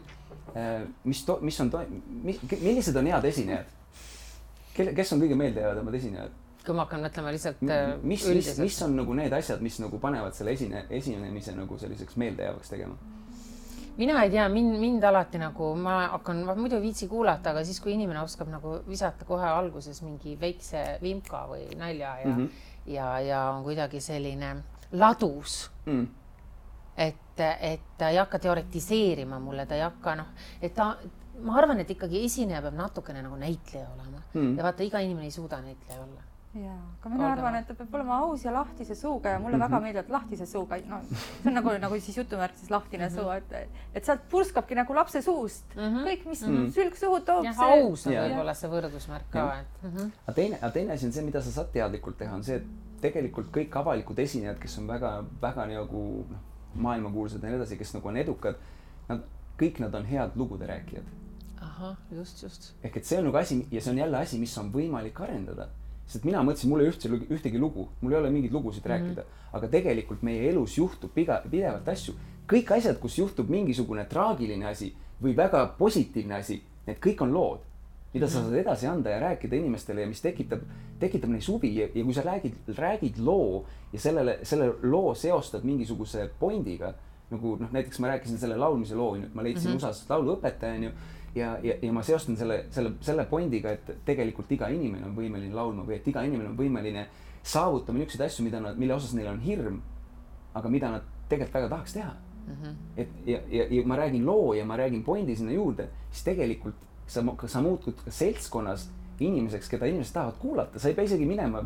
millised on head esinejad? Kes on kõige meeldejäävad omad esinejad? Kui ma hakkan mõtlema lihtsalt üldiselt. Mis on nagu need asjad, mis nagu panevad selle esinemise nagu selliseks meeldejäävaks tegema? Mina ei tea, mind alati nagu, ma muidu viitsi kuulata, aga siis, kui inimene oskab nagu visata kohe alguses mingi väikse vimka või nalja ja on kuidagi selline ladus, et ta ei hakka teoretiseerima mulle, ta ei hakka, ma arvan, et ikkagi esineja peab natukene nagu näitleja olema ja vaata, iga inimene ei suuda näitleja olla. Jaa, aga mina arvan, et ta peab olema aus ja lahtise suuga ja mulle väga meeldib lahtise suuga. See on nagu siis jutumärkises lahtine suu, et sealt purskabki nagu lapse suust. Kõik, mis sülg suhu toob. Aus on võib-olla see võrdusmärk ka. Aga teine asi on see, mida sa saad teadlikult teha, on see, et tegelikult kõik avalikud esinejad, kes on väga nagu maailmakuulsad ja nii edasi, kes nagu on edukad, kõik nad on head lugude rääkijad. Aha, just. Ehk et see on nagu asi ja see on jälle asi, mis on võimalik arendada. Sest mina mõtlesin, mul ei ühtegi lugu, mul ei ole mingeid lugusid rääkida, aga tegelikult meie elus juhtub pidevalt asju. Kõik asjad, kus juhtub mingisugune traagiline asi või väga positiivne asi, need kõik on lood, mida sa saad edasi anda ja rääkida inimestele ja mis tekitab neis huvi ja kui sa räägid loo ja selle loo seostad mingisuguse pointiga, nagu näiteks ma rääkisin selle laulmise loo, ma leidsin USA-s lauluõpetaja ja ma seostan selle pointiga, et tegelikult iga inimene on võimeline laulma või et iga inimene on võimeline saavutama niisuguseid asju, mille osas neil on hirm, aga mida nad tegelikult väga tahaks teha. Ja ma räägin loo ja ma räägin pointi sinna juurde, siis tegelikult sa muutud ka seltskonnas inimeseks, keda inimesed tahavad kuulata. Sa ei pea isegi minema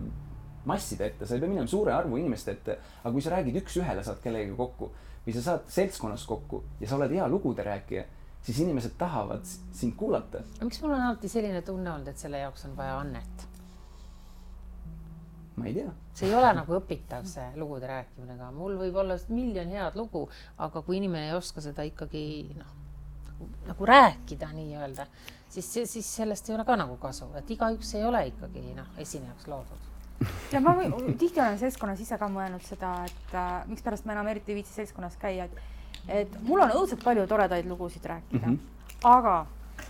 masside ette, sa ei pea minema suure arvu inimeste ette, aga kui sa räägid üks ühele, saad kellegagi kokku või sa saad seltskonnas kokku ja sa oled hea lugude rääkija, siis inimesed tahavad sind kuulata. Miks mul on alati selline tunne olnud, et selle jaoks on vaja annet? Ma ei tea. See ei ole nagu õpitav see lugude rääkimine, aga mul võib olla 1 miljon head lugu, aga kui inimene ei oska seda ikkagi nagu rääkida nii-öelda, siis sellest ei ole ka nagu kasu, et igaüks ei ole ikkagi esinejaks loodud. Ja ma tihti olen seltskonnas ise ka mõelnud seda, et miks pärast ma enam eriti viitsi seltskonnas käia, et mul on õudselt palju toredaid lugusid rääkida, aga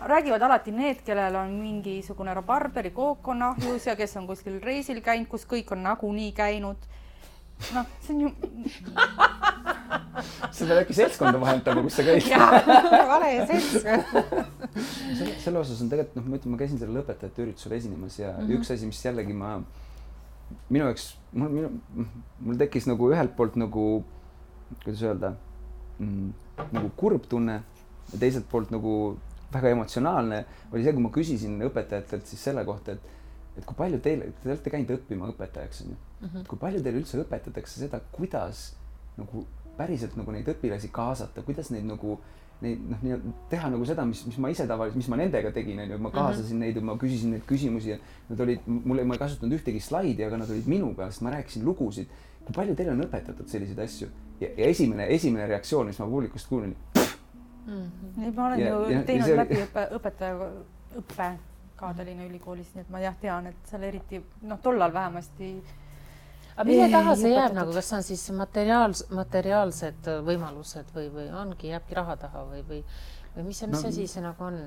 räägivad alati need, kellel on mingisugune rabarberi kook on ahjus ja kes on kuskil reisil käinud, kus kõik on nagunii käinud. Noh, see on ju... Sa pead äkki seltskonda vahendama, kus sa käid. Jaa, vale seltskond. Selle osas on tegelikult, ma ütlen, ma käisin selle lõpetajate üritusel esinemas ja üks asi, mis jällegi minu jaoks, mul tekkis nagu ühelt poolt nagu, kuidas öelda, nagu kurb tunne ja teiselt poolt nagu väga emotsionaalne oli see, kui ma küsisin õpetajatelt siis selle kohta, et kui palju te olete käinud õppima õpetajaks, on ju? Kui palju teile üldse õpetatakse seda, kuidas nagu päriselt nagu neid õpilasi kaasata, kuidas neid nagu teha nagu seda, mis ma ise tavaliselt, mis ma nendega tegin, on ju, ma kaasasin neid ja ma küsisin neid küsimusi ja nad olid, ma ei kasutanud ühtegi slaidi, aga nad olid minuga, sest ma rääkisin lugusid. Kui palju teile on õpetatud selliseid asju? Ja esimene reaktsioon, mis ma publikust kuulin, ma olen ju teinud läbi õpetaja õppe ka Tallinna Ülikoolis, nii et ma tean, et seal eriti, tollal vähemasti. Aga mille taha see jääb nagu, kas on siis materiaalsed võimalused või ongi, jääbki raha taha või mis asi see nagu on?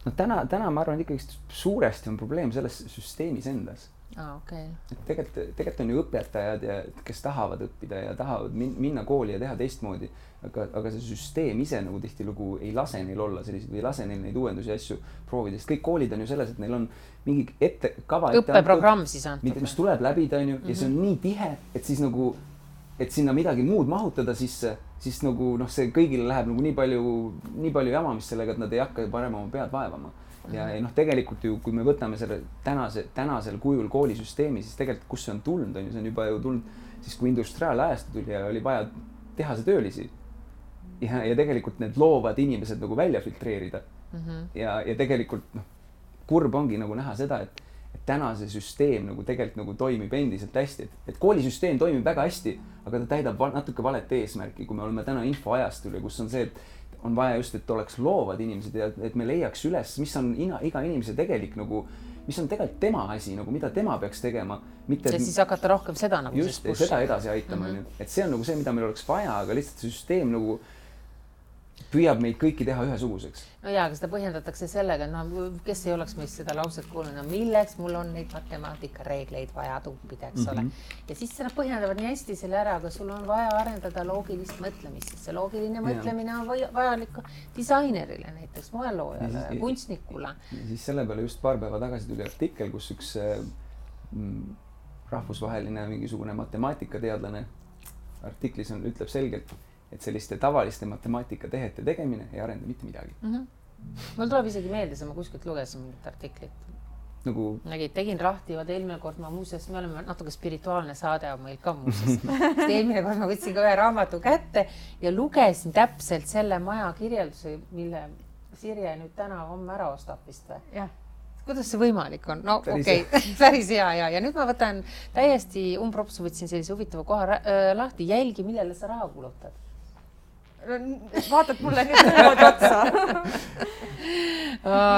No täna ma arvan, et ikkagi suuresti on probleem selles süsteemis endas. Okay. Tegelikult on ju õpetajad, kes tahavad õppida ja tahavad minna kooli ja teha teistmoodi, aga see süsteem ise nagu tihtilugu ei lase neil olla selliseid või ei lase neil neid uuendusi asju proovida, sest kõik koolid on ju selles, et neil on mingi õppeprogramm siis antud, mis tuleb läbida, on ju, ja see on nii tihe, et siis nagu, et sinna midagi muud mahutada sisse, siis nagu see kõigile läheb nagu nii palju jamamist sellega, et nad ei hakka parem oma pead vaevama. Ja tegelikult ju, kui me võtame selle tänasel kujul koolisüsteemi, siis tegelikult kus see on tulnud, on ju, see on juba ju tulnud siis, kui industriaalajastu tuli ja oli vaja tehase töölisi ja tegelikult need loovad inimesed nagu välja filtreerida. Ja tegelikult kurb ongi nagu näha seda, et täna see süsteem nagu tegelikult nagu toimib endiselt hästi, et koolisüsteem toimib väga hästi, aga ta täidab natuke valet eesmärki, kui me oleme täna infoajastul ja kus on see, et on vaja just, et oleks loovad inimesed ja et me leiaks üles, mis on iga inimese tegelik nagu, mis on tegelikult tema asi, nagu mida tema peaks tegema. Ja siis hakata rohkem seda nagu just, seda edasi aitama. Et see on nagu see, mida meil oleks vaja, aga lihtsalt see süsteem nagu püüab meid kõiki teha ühesuguseks. No jaa, aga seda põhjendatakse sellega, kes ei oleks meist seda lauset kuulnud, milleks mul on neid matemaatika reegleid vaja tuppida, eks ole. Ja siis nad põhjendavad nii hästi selle ära, aga sul on vaja arendada loogilist mõtlemist, sest see loogiline mõtlemine on vajalik disainerile näiteks, moeloojale, kunstnikule. Ja siis selle peale just paar päeva tagasi tuli artikkel, kus üks rahvusvaheline mingisugune matemaatikateadlane artiklis ütleb selgelt, et selliste tavaliste matemaatikatehete tegemine ei arenda mitte midagi. Mul tuleb isegi meelde, ma kuskilt lugesin mingit artiklit. Nagu... Tegin lahti, eelmine kord ma muuseas, me oleme natuke spirituaalne saade on meil ka muuseas. Eelmine kord ma võtsin ka ühe raamatu kätte ja lugesin täpselt selle maja kirjelduse, mille Sirje nüüd täna homme ära ostab vist või? Jah. Kuidas see võimalik on? No okei, päris hea ja nüüd ma võtan täiesti umbropsu, võtsin sellise huvitava koha lahti, jälgi, millele sa raha kulutad. Vaatad mulle nüüd niimoodi otsa.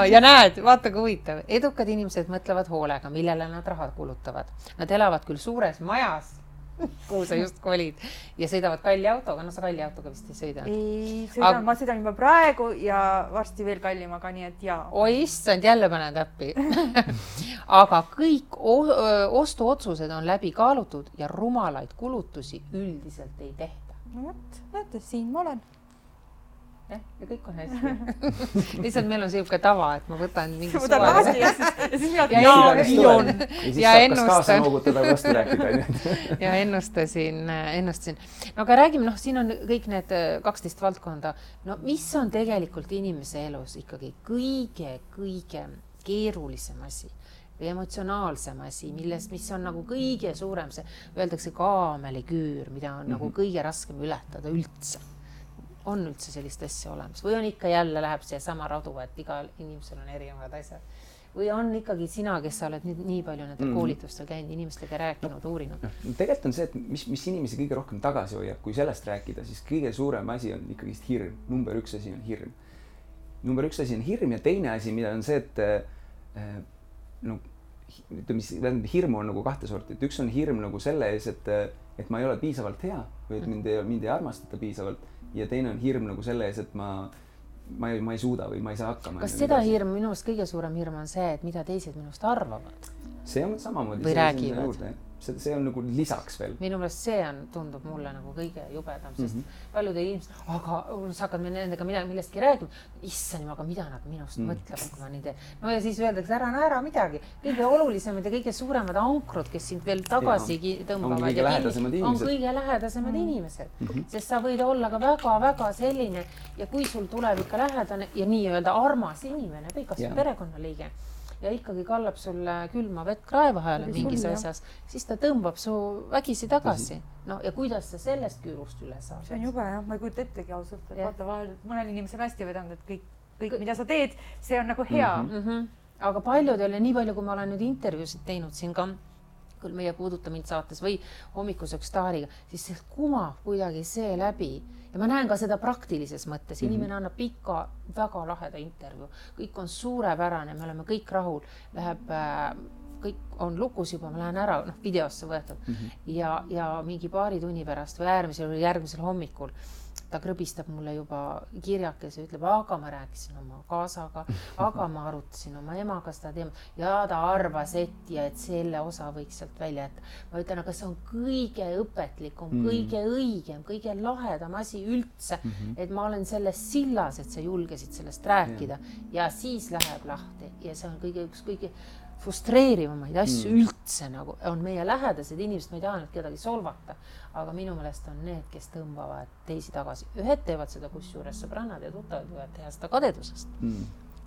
Ja näed, vaata kui huvitav. Edukad inimesed mõtlevad hoolega, millele nad raha kulutavad. Nad elavad küll suures majas, kuhu sa just kolid ja sõidavad kalli autoga. No sa kalli autoga vist ei sõida. Ma sõidan juba praegu ja varsti veel kallimaga, nii et jaa. Oi issand, jälle panen täppi. Aga kõik ostuotsused on läbi kaalutud ja rumalaid kulutusi üldiselt ei tehta. No võt, näete, siin ma olen. Ja kõik on hästi. Lihtsalt meil on selline tava, et ma võtan mingi suva. Lahti ja siis ja ennustasin. No aga räägime, siin on kõik need 12 valdkonda. No mis on tegelikult inimese elus ikkagi kõige keerulisem asi või emotsionaalsem asi, mis on nagu kõige suurem, see öeldakse kaameliküür, mida on nagu kõige raskem ületada üldse. On üldse sellist asja olemas või on ikka jälle läheb see sama radu, et igal inimesel on erinevad asjad või on ikkagi sina, kes sa oled nii palju nende koolitustel käinud, inimestega rääkinud, uurinud? Tegelikult on see, et mis inimesi kõige rohkem tagasi hoiab, kui sellest rääkida, siis kõige suurem asi on ikkagi hirm. Number üks asi on hirm. Number üks asi on hirm ja teine asi, mida on see, et hirmu on nagu kahte sorti, et üks on hirm nagu selle ees, et ma ei ole piisavalt hea või et mind ei armastata piisavalt ja teine on hirm nagu selle ees, et ma ma ei suuda või ma ei saa hakkama. Kas seda hirm, minu arust kõige suurem hirm on see, et mida teised minust arvavad? See on samamoodi. Või räägivad. See on nagu lisaks veel. Minu meelest see tundub mulle nagu kõige jubedam, sest paljud inimesed, aga sa hakkad nendega millestki räägima, issand, aga mida nad minust mõtlevad, kui ma nii teen. No ja siis öeldakse, ära naera midagi. Kõige olulisemad ja kõige suuremad ankrud, kes sind veel tagasi tõmbavad. On kõige lähedasemad inimesed. Sest sa võid olla ka väga-väga selline ja kui sul tuleb ikka lähedane ja nii-öelda armas inimene või kas perekonnaliige ja ikkagi kallab sulle külma vett kraevahääle mingis asjas, siis ta tõmbab su vägisi tagasi. No ja kuidas sa sellest küürust üle saad? See on jube, jah. Ma ei kujuta ettegi ausalt. Vaata vahel, mõnel inimesel hästi vedanud, et kõik, mida sa teed, see on nagu hea. Aga paljudel ja nii palju, kui ma olen nüüd intervjuusid teinud siin ka, küll meie Puuduta mind saates või Hommikuseks staariga, siis see kumab kuidagi see läbi. Ja ma näen ka seda praktilises mõttes. Inimene annab pika, väga laheda intervju. Kõik on suurepärane, me oleme kõik rahul. Kõik on lukus juba, ma lähen ära videosse võetud. Ja mingi paari tunni pärast või järgmisel hommikul ta krõbistab mulle juba kirjakese ja ütleb, aga ma rääkisin oma kaasaga, aga ma arutasin oma emaga seda teema ja ta arvas, et selle osa võiks sealt välja jätta. Ma ütlen, aga see on kõige õpetlikum, kõige õigem, kõige lahedam asi üldse, et ma olen selles sillas, et sa julgesid sellest rääkida ja siis läheb lahti ja see on kõige frustreerivamaid asju üldse nagu on meie lähedased inimesed, ma ei taha nüüd kedagi solvata, aga minu meelest on need, kes tõmbavad teisi tagasi. Ühed teevad seda kusjuures sõbrannad ja tuttavad võivad teha seda kadedusest.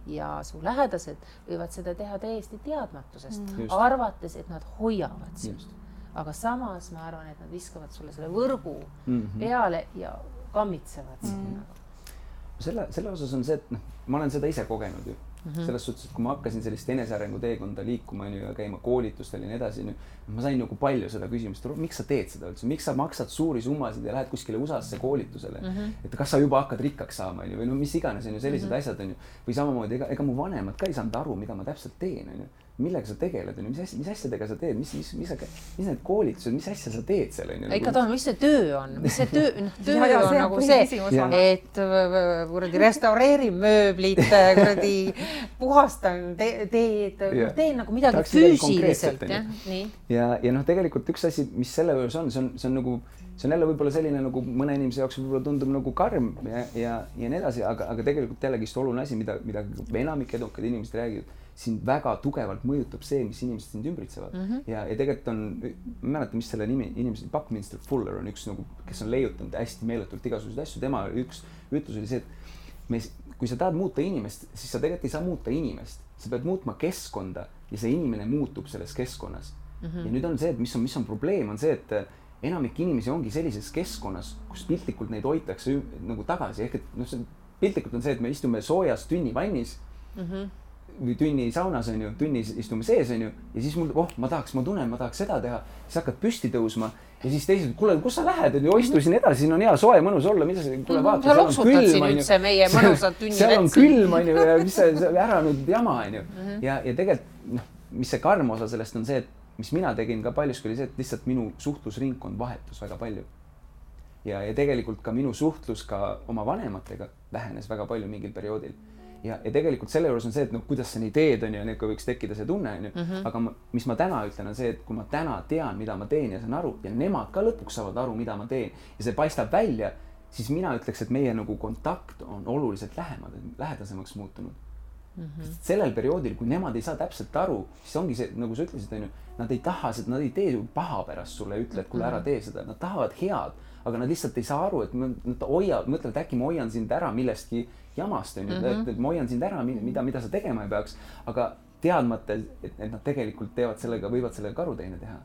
Ja su lähedased võivad seda teha täiesti teadmatusest, arvates, et nad hoiavad sinust. Aga samas ma arvan, et nad viskavad sulle selle võrgu peale ja kammitsevad sinna. Selle osas on see, et ma olen seda ise kogenud ju. Selles suhtes, et kui ma hakkasin sellist enesearengu teekonda liikuma ja käima koolitustel ja nii edasi, ma sain nagu palju seda küsimust, miks sa teed seda üldse, miks sa maksad suuri summasid ja lähed kuskile USA-sse koolitusele, et kas sa juba hakkad rikkaks saama või mis iganes on ju sellised asjad on ju, või samamoodi ega mu vanemad ka ei saanud aru, mida ma täpselt teen on ju. Millega sa tegeled, mis asjadega sa teed, mis need koolitused, mis asja sa teed seal? Ikka tahan, mis see töö on? Mis see töö on nagu see, et restaureerin mööblit, puhastan, teen nagu midagi füüsiliselt. Ja tegelikult üks asi, mis selle juures on, see on jälle võib-olla selline nagu mõne inimese jaoks võib-olla tundub nagu karm ja nii edasi, aga tegelikult jällegist oluline asi, mida enamik edukad inimesed räägivad, sind väga tugevalt mõjutab see, mis inimesed sind ümbritsevad. Ja tegelikult on, ma mäleta, mis selle nimi, inimesed, Buckminster Fuller on üks, kes on leiutanud hästi meeletult igasuguseid asju. Tema üks ütlus oli see, et kui sa tahad muuta inimest, siis sa tegelikult ei saa muuta inimest. Sa pead muutma keskkonda ja see inimene muutub selles keskkonnas. Ja nüüd on see, et mis on probleem, on see, et enamik inimesi ongi sellises keskkonnas, kus piltlikult neid hoitakse nagu tagasi. Ehk et piltlikult on see, et me istume soojas tünnivannis või tünni saunas on ju, tünnis istume sees on ju, ja siis mul, ma tahaks seda teha, siis hakkad püsti tõusma ja siis teised, kuule, kus sa lähed, on ju, istu siin edasi, siin on hea soe, mõnus olla, mida sa, kuule vaata, seal on külm, on ju. Seal on külm, on ju, ja mis sa ära nüüd jama, on ju. Ja tegelikult, mis see karm osa sellest on see, et mis mina tegin ka paljuski oli see, et lihtsalt minu suhtlusringkond vahetus väga palju. Ja tegelikult ka minu suhtlus ka oma vanematega vähenes väga palju mingil perioodil. Ja tegelikult selle juures on see, et kuidas sa nii teed on ja võiks tekkida see tunne on ju. Aga mis ma täna ütlen on see, et kui ma täna tean, mida ma teen ja saan aru ja nemad ka lõpuks saavad aru, mida ma teen ja see paistab välja, siis mina ütleks, et meie nagu kontakt on oluliselt lähedasemaks muutunud. Sellel perioodil, kui nemad ei saa täpselt aru, siis ongi see, nagu sa ütlesid, on ju, nad ei taha seda, nad ei tee paha pärast sulle, ütle, et kuule ära tee seda, nad tahavad head, aga nad lihtsalt ei saa aru, et nad mõtlevad, et äkki ma hoian sind ära millestki jamast, on ju, et ma hoian sind ära, mida sa tegema ei peaks, aga teadmata, et nad tegelikult teevad sellega, võivad sellega karuteine teha.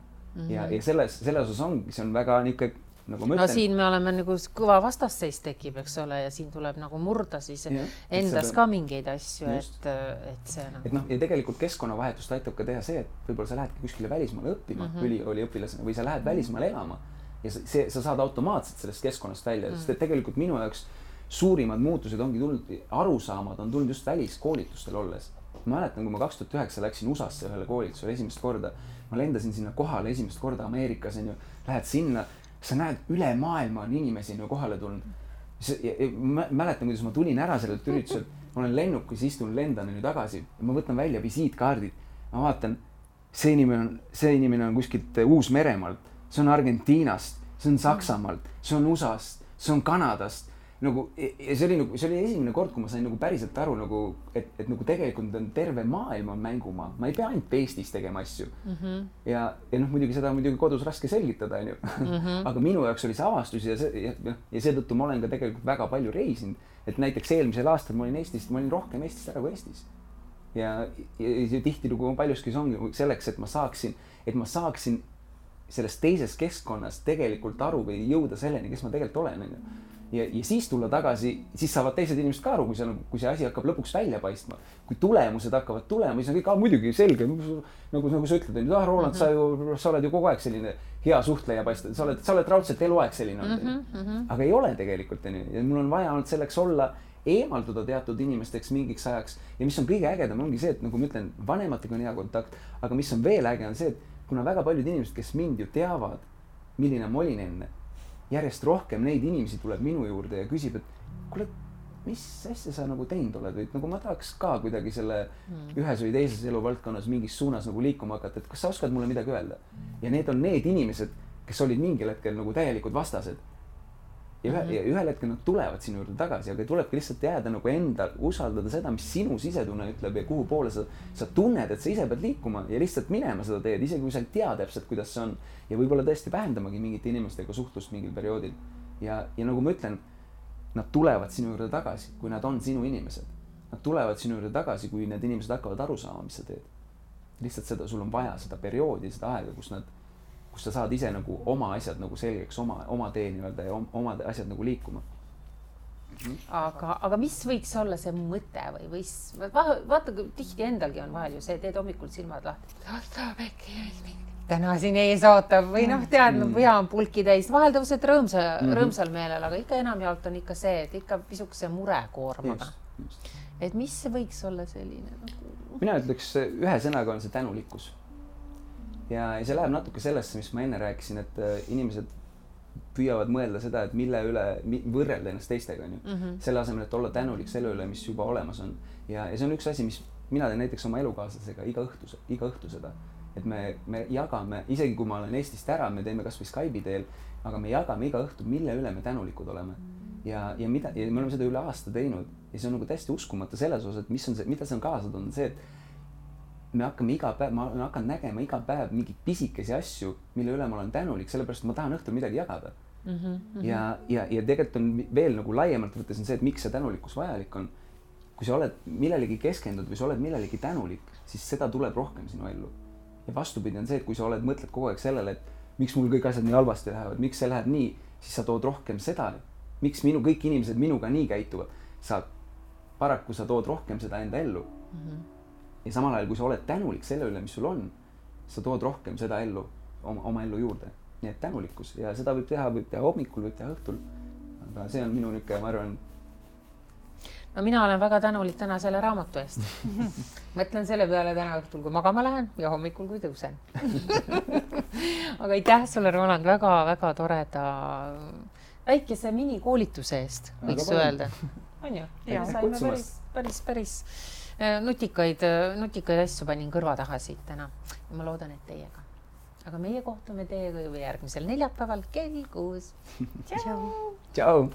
Ja selles osas ongi, see on väga niisugune, nagu ma ütlen. No siin me oleme nagu kõva vastasseis tekib, eks ole, ja siin tuleb nagu murda siis endas ka mingeid asju, et see nagu... Ja tegelikult keskkonnavahetust aitab ka teha see, et võib-olla sa lähedki kuskile välismaale õppima, ülikooliõpilasena, või sa lähed välismaale elama ja sa saad automaatselt sellest keskkonnast välja, sest et tegelikult minu jaoks suurimad muutused ongi tulnud, arusaamad on tulnud just väliskoolitustel olles. Ma mäletan, kui ma 2009 läksin USA-sse ühele koolitusele esimest korda, ma lendasin sinna kohale esimest korda Ameerikas, lähed sinna, sa näed üle maailma on inimesi kohale tulnud. mäletan, kuidas ma tulin ära sellelt ürituselt, ma olen lennukis, istun, lendan nüüd tagasi ja ma võtan välja visiitkaardid. Ma vaatan, see inimene on kuskilt Uus-Meremaalt, see on Argentiinast, see on Saksamaalt, see on USA-st, see on Kanadast. Nagu, ja see oli esimene kord, kui ma sain nagu päriselt aru, nagu, et nagu tegelikult on terve maailm on mängumaa. Ma ei pea ainult Eestis tegema asju. Ja muidugi seda on muidugi kodus raske selgitada, on ju. Aga minu jaoks oli see avastus ja seetõttu ma olen ka tegelikult väga palju reisinud. Et näiteks eelmisel aastal ma olin rohkem Eestist ära kui Eestis. Ja tihti nagu paljuski see ongi selleks, et ma saaksin sellest teisest keskkonnast tegelikult aru või jõuda selleni, kes ma tegelikult olen. Ja siis tulla tagasi, siis saavad teised inimesed ka aru, kui see asi hakkab lõpuks välja paistma. Kui tulemused hakkavad tulema, siis on kõik muidugi selge. Nagu sa ütled, Roland, sa oled ju kogu aeg selline hea suhtleja paista. Sa oled raudselt eluaeg selline. Aga ei ole tegelikult. Ja mul on vaja olnud selleks olla eemalduda teatud inimesteks mingiks ajaks. Ja mis on kõige ägedam, ongi see, et nagu ma ütlen, vanematega on hea kontakt. Aga mis on veel äge, on see, et kuna väga paljud inimesed, kes mind ju teavad, milline ma olin enne, järjest rohkem neid inimesi tuleb minu juurde ja küsib, et kuule, mis asja sa nagu teinud oled, või nagu ma tahaks ka kuidagi selle ühes või teises eluvaldkonnas mingis suunas nagu liikuma hakata, et kas sa oskad mulle midagi öelda? Ja need on need inimesed, kes olid mingil hetkel nagu täielikud vastased. Ja ühel hetkel nad tulevad sinu juurde tagasi, aga tulebki lihtsalt jääda nagu endal, usaldada seda, mis sinu sisetunne ütleb ja kuhu poole sa tunned, et sa ise pead liikuma ja lihtsalt minema seda teed, isegi kui sa ei tea täpselt, kuidas see on. Ja võib-olla tõesti vähendamagi mingite inimestega suhtlust mingil perioodil. Ja nagu ma ütlen, nad tulevad sinu juurde tagasi, kui nad on sinu inimesed. Nad tulevad sinu juurde tagasi, kui need inimesed hakkavad aru saama, mis sa teed. Lihtsalt seda, sul on vaja seda perioodi, seda aega, kus sa saad ise nagu oma asjad nagu selgeks, oma tee nii-öelda ja oma asjad nagu liikuma. Aga mis võiks olla see mõte või vaata, tihti endalgi on vahel ju see, teed hommikul silmad lahti. Täna siin ees ootab või tead, pea on pulki täis. Vahel tõused rõõmsal meelel, aga ikka enamjaolt on ikka see, et ikka pisukese murekoormaga. Et mis see võiks olla selline? Mina ütleks, ühe sõnaga on see tänulikkus. Ja see läheb natuke sellesse, mis ma enne rääkisin, et inimesed püüavad mõelda seda, et mille üle võrrelda ennast teistega. Selle asemel, et olla tänulik selle üle, mis juba olemas on. Ja see on üks asi, mis mina teen näiteks oma elukaaslasega iga õhtu seda. Et me jagame, isegi kui ma olen Eestist ära, me teeme kas või Skype'i teel, aga me jagame iga õhtu, mille üle me tänulikud oleme. Ja me oleme seda üle aasta teinud. Ja see on nagu täiesti uskumata selles osas, et mida see on kaasa toonud, see, et ma hakkan nägema iga päev mingid pisikesi asju, mille üle ma olen tänulik, sellepärast ma tahan õhtul midagi jagada. Ja tegelikult on veel nagu laiemalt võttes on see, et miks see tänulikkus vajalik on. Kui sa oled millelegi keskendunud või sa oled millelegi tänulik, siis seda tuleb rohkem sinu ellu. Ja vastupidi on see, et kui sa mõtled kogu aeg sellele, et miks mul kõik asjad nii halvasti lähevad, miks see läheb nii, siis sa tood rohkem seda, miks kõik inimesed minuga nii käituvad. Paraku sa tood rohkem seda enda ellu. Ja samal ajal, kui sa oled tänulik selle üle, mis sul on, sa tood rohkem seda ellu, oma ellu juurde. Nii et tänulikkus. Ja seda võib teha hommikul, võib teha õhtul. Aga see on minu niisugune, ma arvan. No mina olen väga tänulik täna selle raamatu eest. Mõtlen selle peale täna õhtul, kui magama lähen ja hommikul, kui tõusen. Aga aitäh sulle, Roland, väga toreda väikese minikoolituse eest, võiks öelda. On ju? Saime päris nutikaid asju panin kõrva taha siit täna ja ma loodan, et teiega. Aga meie kohtume teiega juba järgmisel neljapäeval kell 6. Tšau! Tšau!